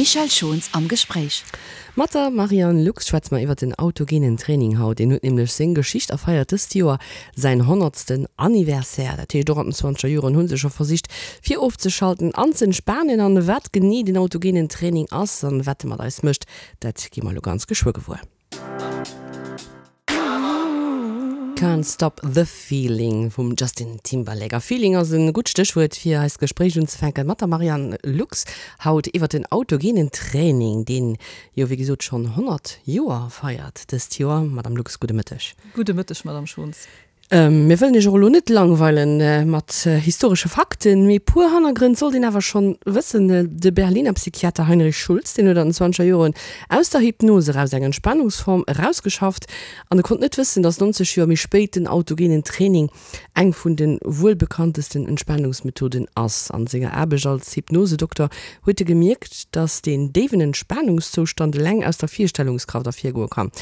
D'Michèle Schons am Gespréich. Mat der Marianne Lux schwätze mer iwwer den autogenen Training haut. Deen huet nämlech seng Geschicht a feiert dëst Joer säin honnertsten Anniversaire. Dat heescht, och an den zwanzeger Joren hu se scho versicht fir ofzeschalten an z'entspanen. An wat genee den autogenen Training ass an wat e mat eis mécht, dat gi mer elo ganz geschwë gewuer. Can't Stop The Feeling vum Justin Timberlake. A Feeling ass e gutt Stéchwuert fir eist Gespréich unzefänken mat der Marianne Lux haut iwwer den autogenen Training, deen jo wéi gesot schonn 100 Joer feiert dëst Joer. Madame Lux, gudde Mëtteg. Gudde Mëtteg, Madame Schons. Mir wëllen Iech och elo net langweilen mat historesche Fakten, mee puer Hannergrënn sollt een awer schonn wëssen. De Berliner Psychiater Heinrich Schulz, deen huet an den zwanzeger Joren aus der Hypnos eraus eng Entspanungsform erausgeschafft an e konnt net wëssen, datt 90 Joer méi spéit den autogenen Training eng vun de wuelbekanntesten Entspanungsmethoden ass. An senger Aarbecht als Hypnosedokter huet e gemierkt, datt deen déiwen Entspanungszoustand eleng aus der Virstellungskraft ervirgoe kann.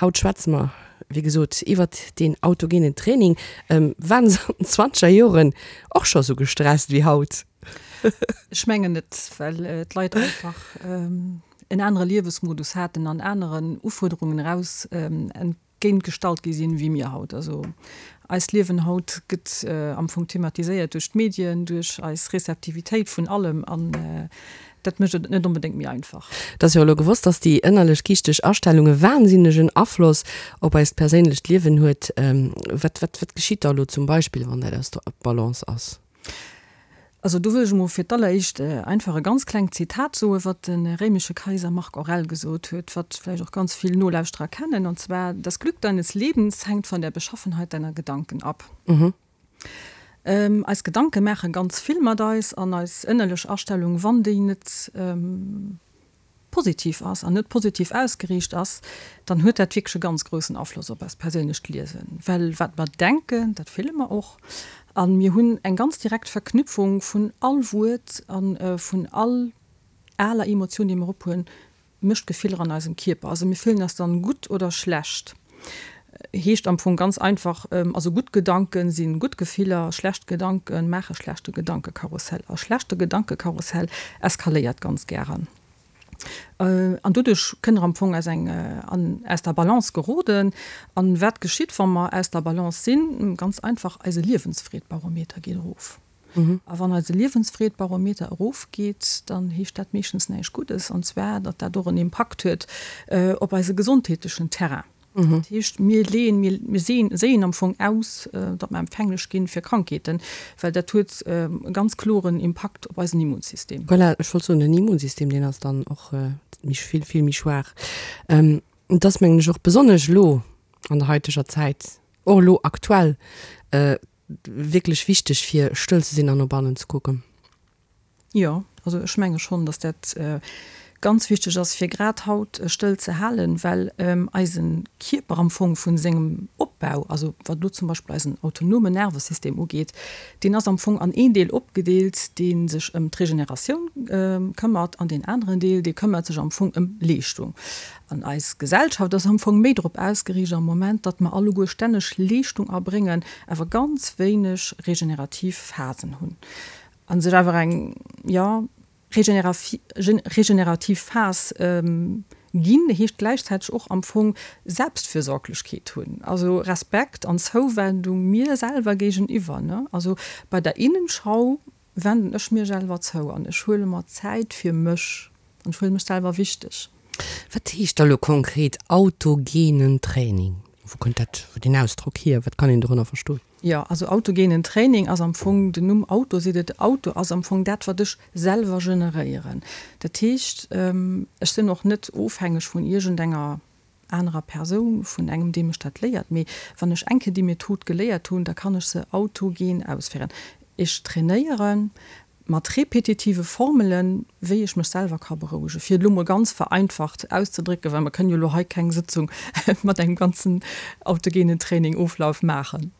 Haut schwätze mer Wéi gesot, iwwert deen autogenen Training. Waren se an den zwanzeger Joren och scho sou gestresst wéi haut? Ech mengen net, well d'Leit einfach en anere Liewesmodus haten an aneren Ufuerderungen eraus entgéint gestallt gi sinn, wéi mir haut. Also eist Liewen haut gëtt am Fong thematiséiert duerch d'Medien, duerch eis Rezeptivitéit vun allem an Dat mécht et net onbedéngt méi einfach. Et ass jo elo gewosst, dass déi ënnerlech geeschteg Astellung e wahnsinnegen Afloss op eist perséinlecht Liewen huet. Wat, wat, wat geschitt da elo zum Beispill, wann dat aus der Balance ass? Also do wëll ech emol fir d'alleréischt einfach e ganz klengt Zitat soen, wat de réimesche Kaiser Marc Aurel gesot huet, wat vläicht och ganz vill Nolauschterer kennen, und zwar, Das Glück deines Lebens hängt von der Beschaffenheit deiner Gedanken ab. Eis Gedanke maache ganz vill mat eis an eis ënnerlech Astellung, wann déi net positiv ass an net positiv ausgeriicht ass, dann huet dat wierklech e ganz groussen Afloss op eist perséinlecht Liewen. Well wat mer denken, dat fille mer och a mir hunn eng ganz direkt Verknüpfung vun all Wuert a vun all aler Emotioun, déi mer ophunn, mécht Gefiller an eisem Kierper. Also mir fillen eis dann gutt oder schlecht. Heescht am Fong ganz einfach, also gutt Gedanken sinn gutt Gefiller, schlecht Gedanken maache schlechte Gedankekarussell. A schlechte Gedankekarussell eskaléiert ganz gären. An doduerch kënne mer am Fong aus eng an aus der Balance geroden. An wat geschitt wa mer aus der Balance sinn? Ganz einfach, eise Liewensfreedbarometer geet erof. A wann eise Liewensfreed-Barometer erofgeet, dann heescht dat meeschtens näischt Guddes, an zwar, datt dat och en Impakt huet op eise gesondheetlechen Terrain. Dat heescht, mir leeën, mir séien am Fong aus, datt mer empfänglech gi fir Krankheeten, well dat huet e ganz kloren Impakt op eisen Immunsystem. Voilà, ech wollt soen, den Immunsystem, deen ass dann och méi, vill, vill méi schwaach. Et ass, mengen ech, och besonnesch elo an der haiteger Zäit, och elo aktuell, Wierklech wichteg fir stëll ze sinn an no bannen ze kucken. Jo, also ech menge schonn, datt dat ganz wichteg ass fir grad haut stëll ze halen, well eise Kierper am Fong vu sengem Opbau, also wat elo zum Beispill eisen autonomen Nervesystem ugeet, deen ass am Fong an een Deel opgedeelt, dee sech ëm d'Regeneratioun këmmert an deen aneren Deel, dee këmmert sech am Fong ëm Leeschtung. An eis Gesellschaft ass am Fong méi drop ausgeriicht am Moment, datt mer alleguer stänneg Leeschtung erbréngen, awer ganz wéineg regenerativ Phasen hunn. A sech awer eng, jo, regenerativ Phas ginn, heescht gläichzäiteg och am Fong Selbstfürsorglechkeet hunn, also Respekt an Zouwendung mir selwer géigeniwwer, ne. Also bei der Innenschau wenden ech mir selwer zou an ech huele mer Zäit fir mech an ech huele mech selwer wichteg. Wat heescht da lo konkret autogenen Training? Wou kënnt dat, deen Ausdrock hier? Wat kann een dorënner verstoen? Jo, also autogenen Training ass am Fong, den Numm Auto seet et, Auto ass am Fong dat wat ech selwer generéieren. Dat heescht, ech sinn och net ofhängeg vun iergendenger anerer Persoun, vun engem dee mech dat léiert, mee wann ech eng Kéier déi Method geléiert hunn, da kann ech se autogen ausféieren. Ech trainéiere mat repetitive Formelen, wéi ech mech selwer ka berouegen, fir et elo mol ganz vereinfacht auszedrécken, well mer kënnen jo elo hei keng Sëtzung mat engem ganzen autogenen Training-Oflauf maachen.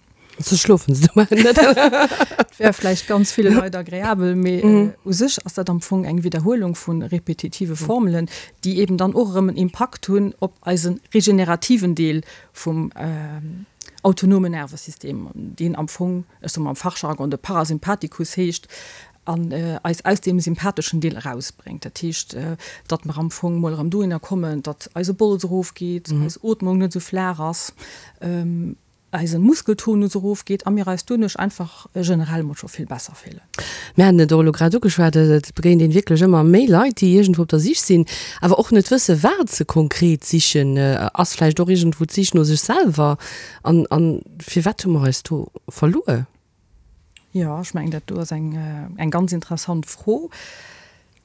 Ze schlofen se dobäi net. Et wär vläicht ganz ville Leit agreabel, mee u sech ass dat am Fong eng Widderhuelung vu repetitive Formelen, déi eben dann och erëm en Impakt hunn op eise regenerativen Deel vum autonomen Nervesystem, deen am Fong, ech soe mol am Fachjargon, de Parasympathikus heescht. An eis aus deem sympatheschen Deel erausbréngt. Dat heescht, datt mer am Fong mol erëm dohinner kommen, datt eise Bols erofgeet, eis Ootmung net esou flaach ass, eise Muskeltonus erofgeet a mir eis doduerch einfach generell mol scho vill besser fillen. Mir haten et och elo grad ugeschwat, et begéint een wierklech ëmmer méi Leit, déi iergendwou op der Sich sinn, awer och net wësse wat se konkret sichen. Ass vläicht och iergendwou d'Sich no sech selwer? An firwat hu mer eis do verluer? Jo, ech mengen, dat do ass eng, eng ganz interessant Fro,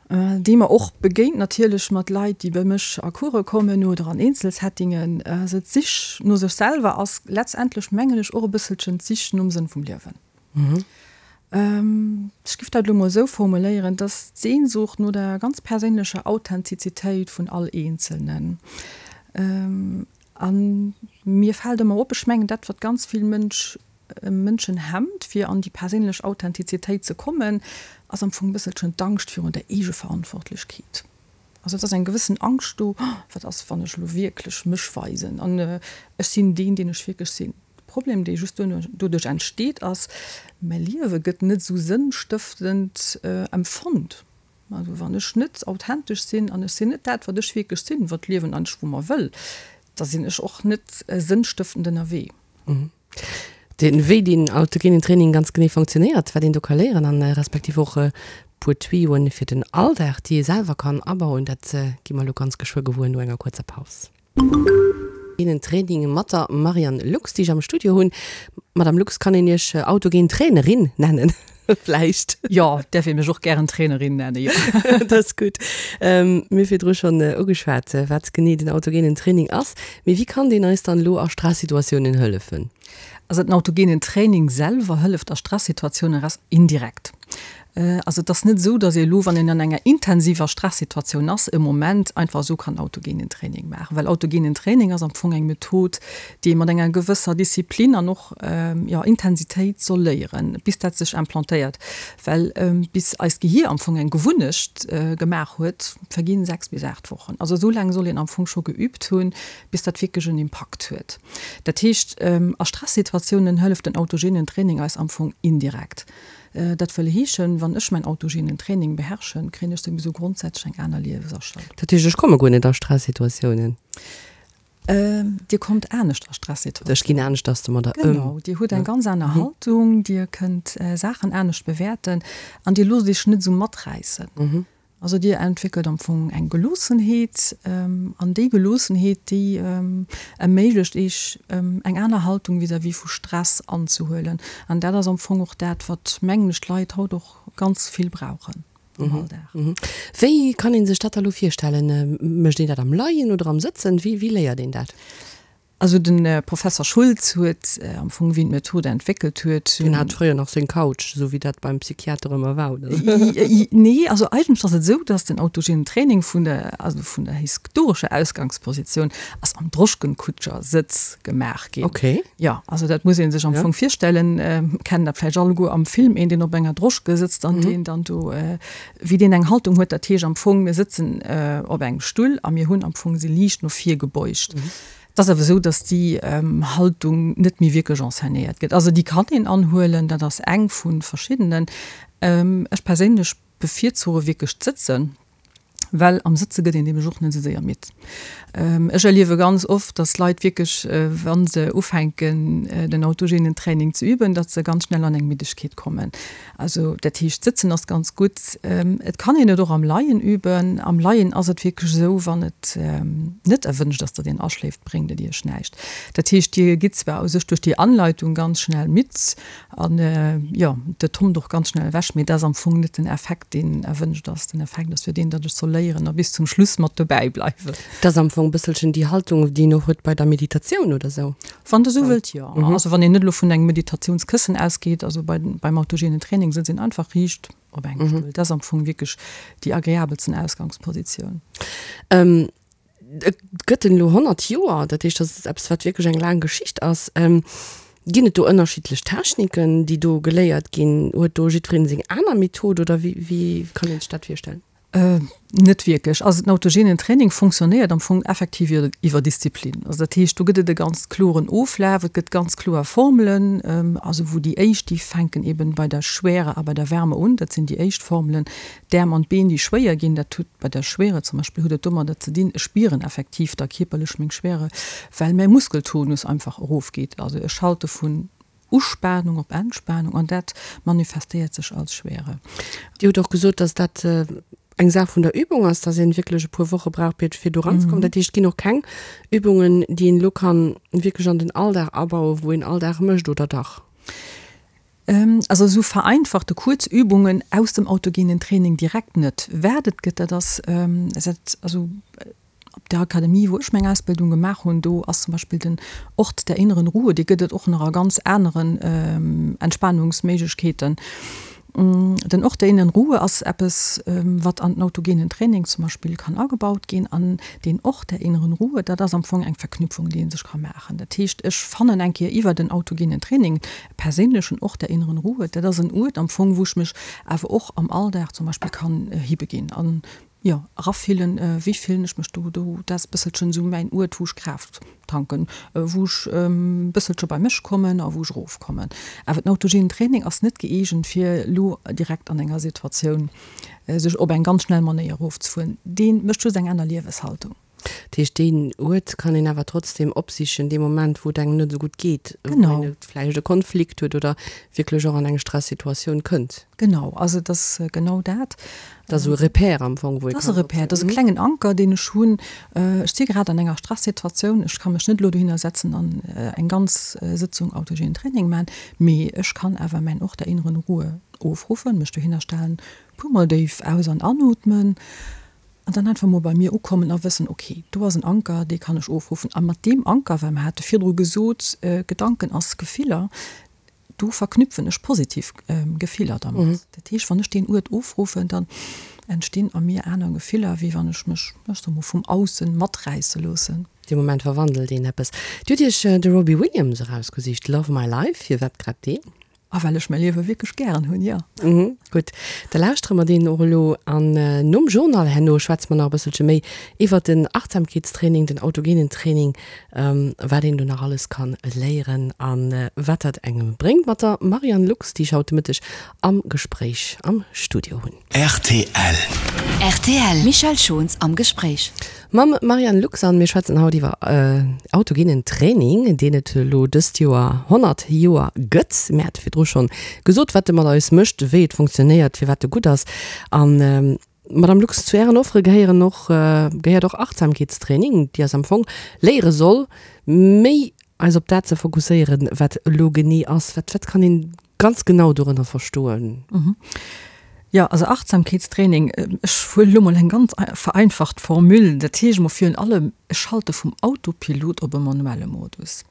déi mer och begéint natierlech mat Leit, déi bei mech a Course kommen oder an Eenzelsettingen. Also d'Sich no sech selwer ass letztendlech, mengen ech, och e bësselchen d'Sich nom Sënn vum Liewen. Ech géif dat elo mol esou formuléieren, dass d'Sehnsucht no der ganz perséinlecher Authentizitéit vun all Eenzelnen. A mir fält ëmmer op, ech mengen dat, wat ganz vill Mënsch, Mënschen hemmt, fir an déi perséinlech Authentizitéit ze kommen, ass am Fong e bësselchen d'Angscht virun der Eegeverantwortlechkeet. Also et ass eng gewëssen Angscht do, Wat ass, wann ech elo wierklech mech weisen an ech sinn deen, deen ech wierklech sinn? De Problem, dee just doduerch entsteet, ass, mäi Liewe gëtt net esou sënnstëftend empfonnt. Also wann ech net authentesch sinn an ech sinn net dat, wat ech wierklech sinn, wat d'Liewen eigentlech vu mer wëll, da sinn ech och net sënnstëftend ënnerwee. Den, wéi deen autogenen Training ganz genee fonctionnéiert, wat een do ka léieren an respektiv och e puer Tuyauxen fir den Alldag, déi ee selwer kann abauen, dat gi mer elo ganz geschwë gewuer no enger kuerzer Paus. Autogenen Training mat der Marianne Lux, déi ech am Studio hunn. Madame Lux, kann een Iech autogen Trainerin nennen vläicht? Jo, däerf ee mech och gären Trainerin nennen, jo. Dat ass gutt. Mir hu virdru schonn ugeschwat, wat genee den autogenen Training ass. Mee wéi kann deen eis dann elo a Stressituatiounen hëllefen? Also den autogenen Training selwer hëlleft a Stressituatiounen res. Indirekt. Also et ass net esou, datt ee elo, wann een an enger intensiver Stressituatioun ass, e Moment einfach esou kann autogenen Training maachen. Well autogenen Training ass am Fong eng Method, déi ee mat enger gewësser Disziplin an och, jo, Intensitéit soll léieren, bis dat sech implantéiert. Well bis eist Gehier am Fong eng Gewunnecht gemaach huet, verginn 6 bis 8 Wochen. Also esou laang soll een am Fong scho geübt hunn, bis dat wierklech en Impakt huet. Dat heescht, a Stressituatiounen hëlleft den autogenen Training eis am Fong indirekt. Dat wëll heeschen, wann ech mäin autogenen Training beherrschen, kréien ech souwisou grondsätzlech eng aner Liewesastellung. Dat heescht, ech komme guer net a Stressituatiounen? Dir kommt anescht a Stressituatiounen. Ech ginn aneschters domadder ëm. Genau, Dir hutt eng ganz aner Haltung, Dir kënnt Saachen anescht bewäerten an Dir loosst Iech net esou maträissen. Also Dir entwéckelt am Fong eng Geloossenheet an déi Geloossenheet, déi erméiglecht Iech eng aner Haltung vis-à-vis vu Stress anzehuelen. An dat ass am Fong och dat, wat, mengen ech, d'Leit haut och ganz vill brauchen am Alldag. Wéi kann ee sech dat da lo virstellen? Mécht een dat am Leien oder am Sëtzen? Wéi léiert een dat? Also de Professer Schulz huet am Fong, wéi en d'Method entwéckelt huet. Deen hat fréier nach seng Couch, esou wéi dat beim Psychiater ëmmer war, oder? Nee, also eigentlech ass et esou, datt den autogenen Training vun der, also vun der historescher Ausgangspositioun ass am Droschkenkutscher-Sëtz gemaach ginn. Okay. Jo, also dat muss ee sech am Fong virstellen, kennen dat vläicht alleguer am Film, een deen op enger Droschke sëtzt an deen dann do, wéi deen eng Haltung huet. Dat heescht am Fong, mir sëtzen op engem Stull a mir hunn am Fong se liicht no vir gebeugt. Et ass awer esou, datt déi Haltung net méi wierklech enseignéiert gëtt. Also déi kann een anhuelen, dat ass eng vu verschiddenen. Ech perséinlech bevirzuche wierklech d'Sëtzen, well am Sëtze gëtt een nämlech och net esou séier midd. Ech erliewe ganz oft, datt Leit wierklech, wa se ufänken den autogenen Training ze üben, datt se ganz schnell an eng Middegkeet kommen. Also dat heescht, sëtzen ass ganz gutt. Et kann een et och am Leien üben. Am Leien ass et wierklech esou, wann et net erwënscht ass, datt een aschléift, bréngt et Iech näischt. Dat heescht, Dir gitt zwar u sech duerch déi Anleitung ganz schnell midd an, jo, et tommt och ganz schnell ewech, mee dat ass am Fong net den Effekt, deen erwënscht ass. Den Effekt ass jo deen, datt ech soll léieren a bis zum Schluss mat dobäi bleiwen. Dat ass am Fong e bësselchen déi Haltung, déi een och huet bei der Meditatioun oder esou. Wann Der esou wëllt, jo. Also wann een net elo vun engem Meditatiounskëssen ausgeet, also bei, beim autogenen Training sëtzt een einfach riicht op engem Stull. Dat ass am Fong wierklech déi agreabelsten Ausgangspositioun. Et gëtt en elo 100 Joer, dat heescht, dat ass eppes, wat wierklech eng laang Geschicht ass. Ginn et do ënnerschiddlech Techniken, déi do geléiert ginn? Huet do jiddwereen seng aner Method oder wéi, wéi kann een sech dat virstellen? Net wierklech. Also den autogenen Training fonctionnéiert am Fong effektiv iwwer Disziplin. Also dat heescht, do gëtt et e ganz kloren Oflaf, et gëtt ganz kloer Formelen, also wou déi éischt, déi fänken eben bei der Schwere a bei der Wärme un, dat sinn déi éischt Formelen. D'Äerm an d'Been, déi schwéier ginn, dat huet bei der Schwere zum Beispill huet et domadder ze dinn, ech spieren effektiv da kierperlech meng Schwere, well mäi Muskeltonus einfach erofgeet. Also ech schalte vun Uspanung op Entspanung an dat manifestéiert sech als Schwere. Dir hutt och gesot, dass dat eng Saach vun der Übung ass, dass een wierklech e puer Woche brauch fir do eranzekommen. Dat heescht, et ginn och keng Übungen, déi een elo kann wierklech an den Alldag abauen, wou een all Dag mécht, oder dach? Also esou vereinfachte kuerz Übungen aus dem autogenen Training direkt net. Wat et gëtt, dat ass, also Op der Akademie, wou ech meng Ausbildung gemaach hunn, do ass zum Beispill den Ort der inneren Ruhe, dee gëtt et och nach a ganz aneren Entspanungsméiglechkeeten. Den Ort der inneren Ruhe ass eppes, wat an den autogenen Training zum Beispill kann agebaut ginn. An deen Ort der inneren Ruhe, dat ass am Fong eng Verknüpfung, déi ee sech ka maachen. Dat heescht, ech fannen eng Kéier iwwer den autogenen Training e perséinlechen Ort der inneren Ruhe. Dat ass en Uert am Fong, wou ech mech awer och am Alldag zum Beispill kann hibeginn an Jo, erafillen, wéi fillen ech mech do? Do, dat ass bësselchen esou mäin Uert, wou ech Kraaft tanken, wou ech bësselche bei mech kommen a wou ech erofkommen. Awer den autogenen Training ass net gëeegent, fir elo direkt an enger Situatioun sech op eng ganz schnell Manéier erofzefueren. Dee mécht just eng aner Lieweshaltung. Dat heescht, deen Uert kann een awer trotzdem opsichen, dee Moment, wou et engem net esou gutt geet, wou een vläicht e Konflikt huet oder wierklech och an eng Stressituatioun kënnt. Genau, also et ass genau dat. Dat ass esou e Repère am Fong, wou ee kann. Dat ass e Repère, dat ass e klengen Anker, deen ech hunn. Ech si grad an enger Stressituatioun, ech ka mech net elo dohinner setzen an eng ganz Sëtzung autogenen Training maachen, mee ech kann awer mäin Ort der inneren Ruhe ofruffen, mech dohinner stellen, puermol déif aus an anootmen An dann einfach mol bei mir ukommen a wëssen, ok, do ass en Anker, dee kann ech ofruffen. A mat deem Anker, well mer hate virdru gesot, Gedanken ass Gefiller, do verknüpfen ech positiv Gefiller dermat. Dat heescht, wann ech deen Uert ofruffen, dann entstinn a mir aner Gefiller, wéi wann ech mech, ech soe mol, vum Aussen maträisse loossen. Dee Moment verwandelt een eppes. Dir hutt Iech de Robbie Williams erausgesicht, Love My Life. Firwat grad deen? A well ech mäi Liewe wierklech gären hunn, jo. Mhm, gutt. Da lauschtere mer deen och elo. An nom Journal herno schwätze mer nach e bësselche méi iwwert den Achtsamkeetstraining, den autogenen Training, wat een do nach alles ka léieren a wat dat engem bréngt mat der Marianne Lux, déi ech haut de Mëtteg am Gespréich am Studio hunn. Rtl. Rtl, Michèle Schons am Gespréich. Mam Marianne Lux an mir schwätzen haut iwwer autogenen Training, deen et elo dëst Joer 100 Joer gëtt. Mir hate virdru schonn gesot, wat e mat eis mécht, wéi et funktionéiert, firwat e gutt ass. An Madame Lux, zu Ären Offere gehéieren och, gehéiert och Achtsamkeetstraining, déi eis am Fong léiere soll, méi eis op dat ze fokusséieren, wat elo genee ass. Wat, wat kann een ganz genau dorënner verstoen? Jo, also Achtsamkeetstraining, ech huelen elo mol eng ganz vereinfacht Formule, dat heescht emol virun allem, ech schalte vum Autopilot op e manuelle Modus.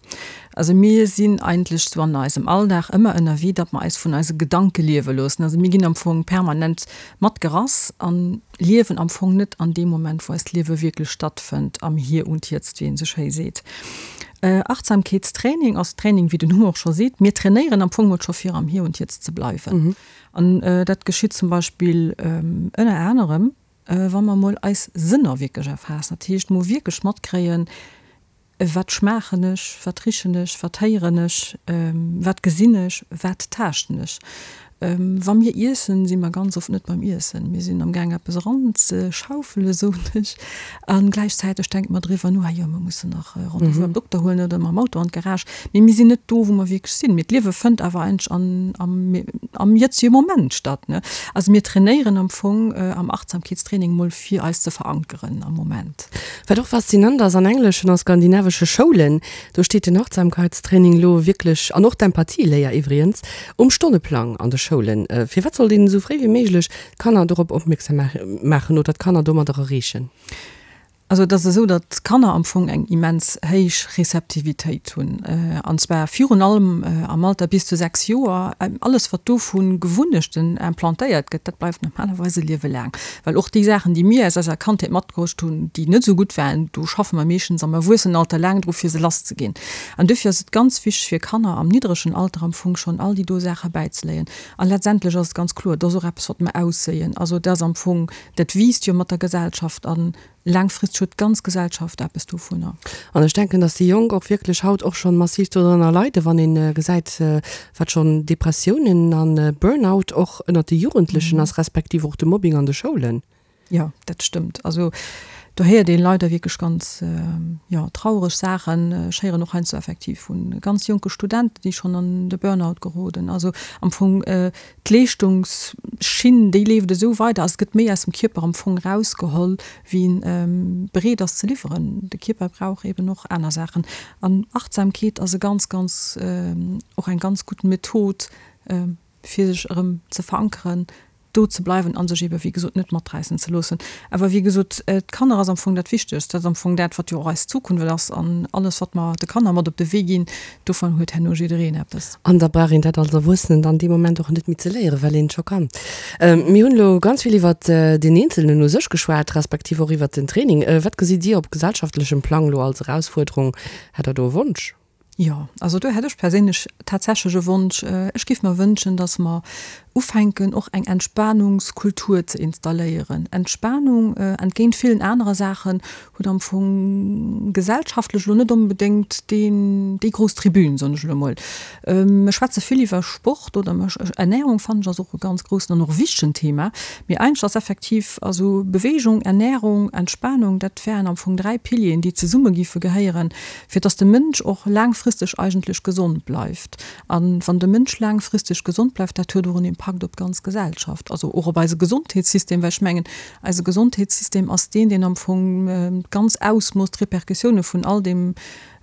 Also mir sinn eigentlech sou an eisem Alldag ëmmer ënnerwee, datt mer eis vun eise Gedanke liewe loossen. Also mir ginn am Fong permanent matgerass an liewen am Fong net an deem Moment, wou eist Liewe wierklech stattfënnt, am Hier und Jetzt, wéi een sou schéi seet. Achtsamkeetstraining ass Training, wéi den Numm och scho seet. Mir trainéieren am Fong mol scho fir am Hier und Jetzt ze bleiwen. An dat geschitt zum Beispill ënner anerem, wa mer mol eis Sënner wierklech erfaassen. Dat heescht, mol wierklech matkréien, Wat schmaachen ech, wat richen ech, wat héieren ech, wat gesinn ech, wat taaschten ech? Wa mir iessen, si mer ganz oft net beim Iessen. Mir sinn am Gaang eppes eranzeschaufelen, soen ech, a gläichzäiteg denke mer driwwer no, ah jo, mer mussen nach Rendez-vous beim Dokter huelen oder mam Auto an d'Garage. Mee mir sinn net do, wou mer wierklech sinn. Mee d'Liewe fënnt awer eigentlech an, am, am jëtzege Moment statt, ne? Also mir trainéieren am Fong am Achtsamkeetstraining mol fir eis ze verankeren am Moment. Wat och faszinant ass, an engleschen a skandinavesche Schoulen, do steet den Achtsamkeitstraining lo wierklech, an och d'Empathieléier iwwrigens, um Stonneplang an de Schoulen. Firwat sollt een esou fréi wéi méiglech d'Kanner dorop opmierksam maachen oder d'Kanner domadder erreechen? Also et ass esou, datt d'Kanner am Fong eng immens héich Receptivitéit hunn, an zwar virun allem am Alter bis zu 6 Joer. Alles wat do vu Gewunnechten implantéiert gëtt, dat bleift normalerweis e Liewe laang. Well och déi Saachen, déi mir aus eiser Kandheet matbruecht hunn, déi net esou gutt waren, do schaffe mer meeschtens am Erwuessenenalter laang dru fir se lass ze ginn. An dofir ass et ganz wichteg fir Kanner am niddregen Alter am Fong schonn all déi do Saache bäizeléien. A letztendlech ass et ganz kloer, et ass och eppes wat mer ausséien. Also et ass am Fong Dat wiisst jo mat der Gesellschaft a laangfristeg huet d'ganz Gesellschaft eppes dovunner. An ech denken, dass déi Jonk och wierklech haut och schonn massiv dodrënner leiden, wann ee gesäit, wat schonn Depressiounen a Burnout och ënnert de Jugendlechen ass, respektiv och de Mobbing an de Schoulen. Jo, dat stëmmt. Also do héiert ee leider wierklech ganz, jo, traureg Saachen. Ech héieren och heiansdo effektiv vu ganz jonke Studenten, déi schonn an de Burnout geroden. Also am Fong D'Leeschtungsschinn, déi leeft esou weider, also et gëtt méi aus dem Kierper am Fong erausgeholl, wéi en bereet ass ze liwweren. De Kierper brauch eben och aner Saachen. An Achtsamkeet ass e ganz, ganz, och eng ganz gutt Method, fir sech erëm ze verankeren, do ze bleiwen a sech ebe wéi gesot net maträissen ze loossen. Awer wéi gesot, d'Kanner ass am Fong dat Wichtegst. Dat ass am Fong dat, wat jo och eis Zukunft ass an alles, wat mer de Kanner mat op de Wee ginn, Dovun huet herno jiddereen eppes. An da brauch een dat als Erwuessenen dann dee Moment och net méi ze léieren, well een et scho kann. Mir hunn elo ganz vill iwwert deen Eenzelnen u sech geschwat, respektiv och iwwert den Training. Wat gesitt Dir op gesellschaftlechem Plang elo als Erausfuerderung? Hätt Der do e Wonsch? Jo, also do hätt ech perséinlech tatsächlech e Wonsch. Ech géif mer wënschen, datt mer ufänken och eng Entspanungskultur ze installéieren. Entspanung, entgéint villen anere Saachen, huet am Fong gesellschaftlech elo net onbedéngt deen, déi grouss Tribün, soen ech elo emol. Mir schwätze vill iwwer Sport oder Ernährung fannen ech ass och e ganz groussen an och wichtegen Thema. Mee eigentlech ass effektiv, also Bewegung, Ernährung, Entspanung, dat wären am Fong 3 Pilieren, déi zesumme géife gehéieren, fir dass de Mënsch och laangfristeg eigentlech gesond bleift. A wann de Mënsch laangfristeg gesond bleift, dat huet och en Impakt op d'ganz Gesellschaft, also och op eise Gesondheetssystem, well ech mengen, eise Gesondheetssystem ass deen, deen am Fong d'ganz Ausmooss, d'Repercussioune vun all deem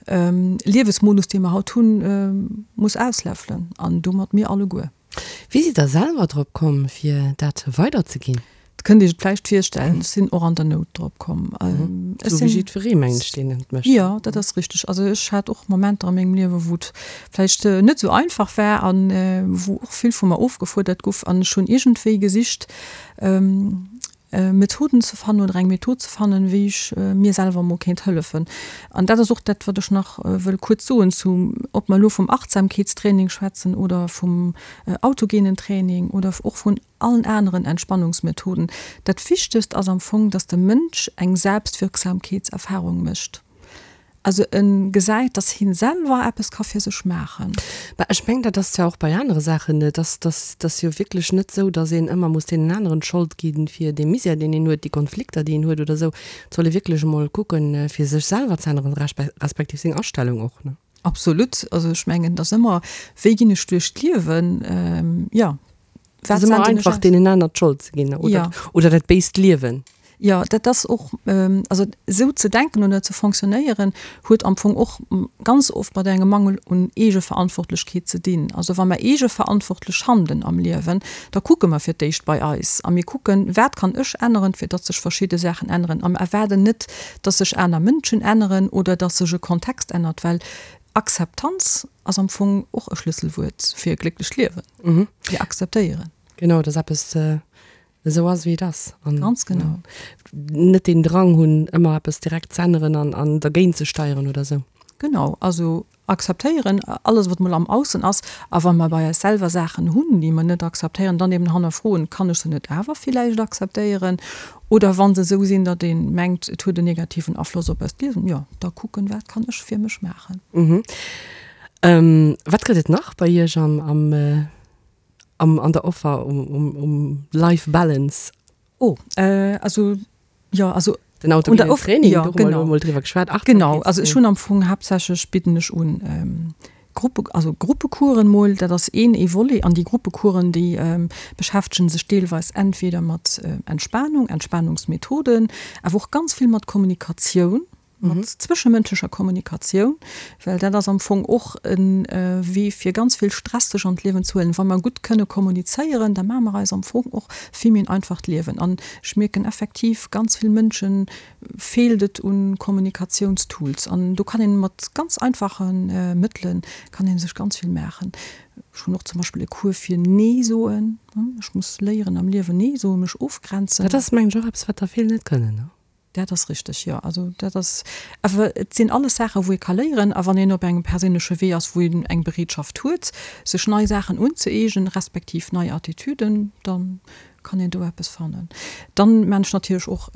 Liewesmodus, dee mer haut hunn, muss ausläffelen, an domat mir alleguer. Wéi sidd Der selwer drop komm, fir dat weiderzeginn? Et kënnt Iech et vläicht virstellen, ech sinn och an der Nout drop komm. Esou wéi jiddweree, mengen ech, deen et mécht. Jo, dat ass richteg. Also ech hat och Momenter a mengem Liewe wou et vläicht net esou einfach war an wou och vill vu mer ofgefuerdert guff an ech hunn iergendwéi gesicht, Methoden ze fannen oder eng Method ze fannen, wéi ech mir selwer emol kéint hëllefen. An dat ass och dat, wat ech nach wëll kuerz soen zu, ob mer elo vum Achtsamkeetstraining schwätzen oder vum autogenen Training oder och vun allen aneren Entspannungsmethoden. Dat Wichtegst ass am Fong, dass de Mënsch eng Selbstwirksamkeetserfahrung mécht. Also e gesäit, dass hien selwer eppes ka fir sech maachen. Mä ech mengen, dat ass jo och bei anere Saachen, et ass, dass, dass jo wierklech net esou, dass een ëmmer muss deenen aneren d'Schold gi fir dee Misär, deen een huet, déi Konflikter, déi een huet oder esou. Et soll ee wierklech emol kucken, fir sech selwer ze änneren, respektiv seng Astellung och, ne? Absolut. Also ech mengen, et ass ëmmer, wéi ginn ech duerch d'Liewen? Jo, wat senden ech aus? Einfach deenen aner d'Schold ze ginn oder, ja. oder dat béist Liewen. Jo, dat ass och, also esou ze denken oder ze fonctionnéieren, huet am Fong och ganz oft mat engem Mangel un Eegeverantwortlechkeet ze dinn. Also wa mer eegeverantwortlech handelen am Liewen, da kucke mer fir d'éischt bei eis a mir kucken, wat kann ech änneren, fir datt sech verschidde Saachen änneren a mer erwaarden net, datt sech aner Mënschen änneren oder datt sech e Kontext ännert, well Akzeptanz ass am Fong och e Schlësselwuert fir e glécklecht Liewen. Fir akzeptéieren. Genau, dass eppes esou ass, wéi et ass. An Ganz genau. Net deen Drang hunn, ëmmer eppes direkt z'änneren an, an dergéint ze steieren oder esou. Genau, also akzeptéieren, alles wat mol am Aussen ass. A wa mer bei eis selwer Saachen hunn, déi mer net akzeptéieren, dann eben hannerfroen, kann ech se net awer villäicht akzeptéieren? Oder wa se esou sinn, datt ee mengt, et huet en negativen Afloss op eist Liewen, jo, da kucken, wat kann ech fir mech maachen? Wat gëtt et nach bei Iech am, am, am, an der Offer um, um, um Life Balance? Oh, also, jo, also. Den autogenen Training, do hu mer elo emol driwwer geschwat. Genau, also ech hunn am Fong haaptsächlech bidden ech un Gruppe, also Gruppecoursen mol, dat ass een ee Volet. An déi Gruppecoursen, déi beschäftegen sech deelweis entweder mat Entspanung, Entspanungsmethoden, awer och ganz vill mat Kommunikatioun. mat zwëschemënschlecher Kommunikatioun, well dat ass am Fong och e Wee fir ganz vill Stress sech an d'Liewen ze huelen. Wa mer gutt kënne kommunizéieren, da maache mer eis am Fong och vill méi en einfacht Liewen. An ech mierken effektiv, ganz vill Mënsche feelt et u Kommunikatiounstools. An do kann een mat ganz einfache Mëttele kann ee sech ganz vill maachen. Ech hunn och zum Beispill e Cours fir Nee soen. Ech muss léieren am Liewen Nee soen, mech ofgrenzen. Dat ass mengen ech och eppes wat der vill net kënnen, ne? Dat ass richteg, jo. Also dat ass awer, et sinn alles Saachen, wou ee ka léieren. A wann een op engem perséinleche Wee ass, wou een eng Bereetschaft huet, sech nei Saachen unzëeegnen, respektiv nei Attitüden, da kann een do eppes fannen. Dann maan ech natierlech och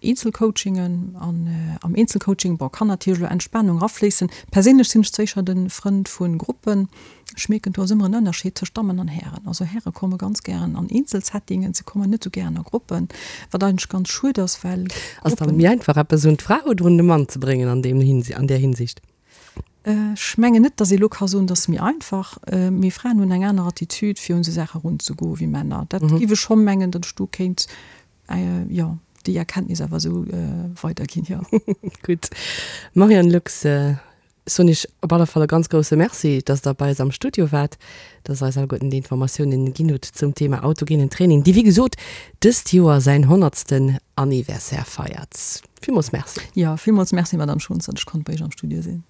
Eenzelcoachingen. An am Eenzelcoaching, bon, kann natierlech elo Entspanung erafléissen. Perséinlech sinn ech sécher de Frënd vu Gruppen. Ech mierken, do ass ëmmer en Ënnerscheed tëscht Dammen an Hären. Also Häre komme ganz gären an Eenzelsettingen, se kommen net esou gären a Gruppen, wat eigentlech ganz schued ass, well Ass dann méi einfach eppes un d'Fra oder un de Mann ze bréngen an deem an där Hinsicht? Ech mengen net, datt ee elo ka soen, dat ass méi einfach, mee Fraen hunn eng aner Attitude fir un esou Saache erunzegoen wéi Männer. Dat géif ech scho mengen, datt ech do kéint, jo, déi Erkenntnis awer esou weiderginn, jo. Gutt. Marianne Lux, soen Iech op alle Fall e ganz grousse Merci, dass Der bei eis am Studio waart, dass Der eis alleguerten déi Informatiounen ginn hutt zum Thema autogenen Training, dee wéi gesot dëst Joer säin honnertsten Anniversaire feiert. Villmools Merci. Jo, villmools Merci, Madame Schons, datt ech konnt bei Iech am Studio sinn.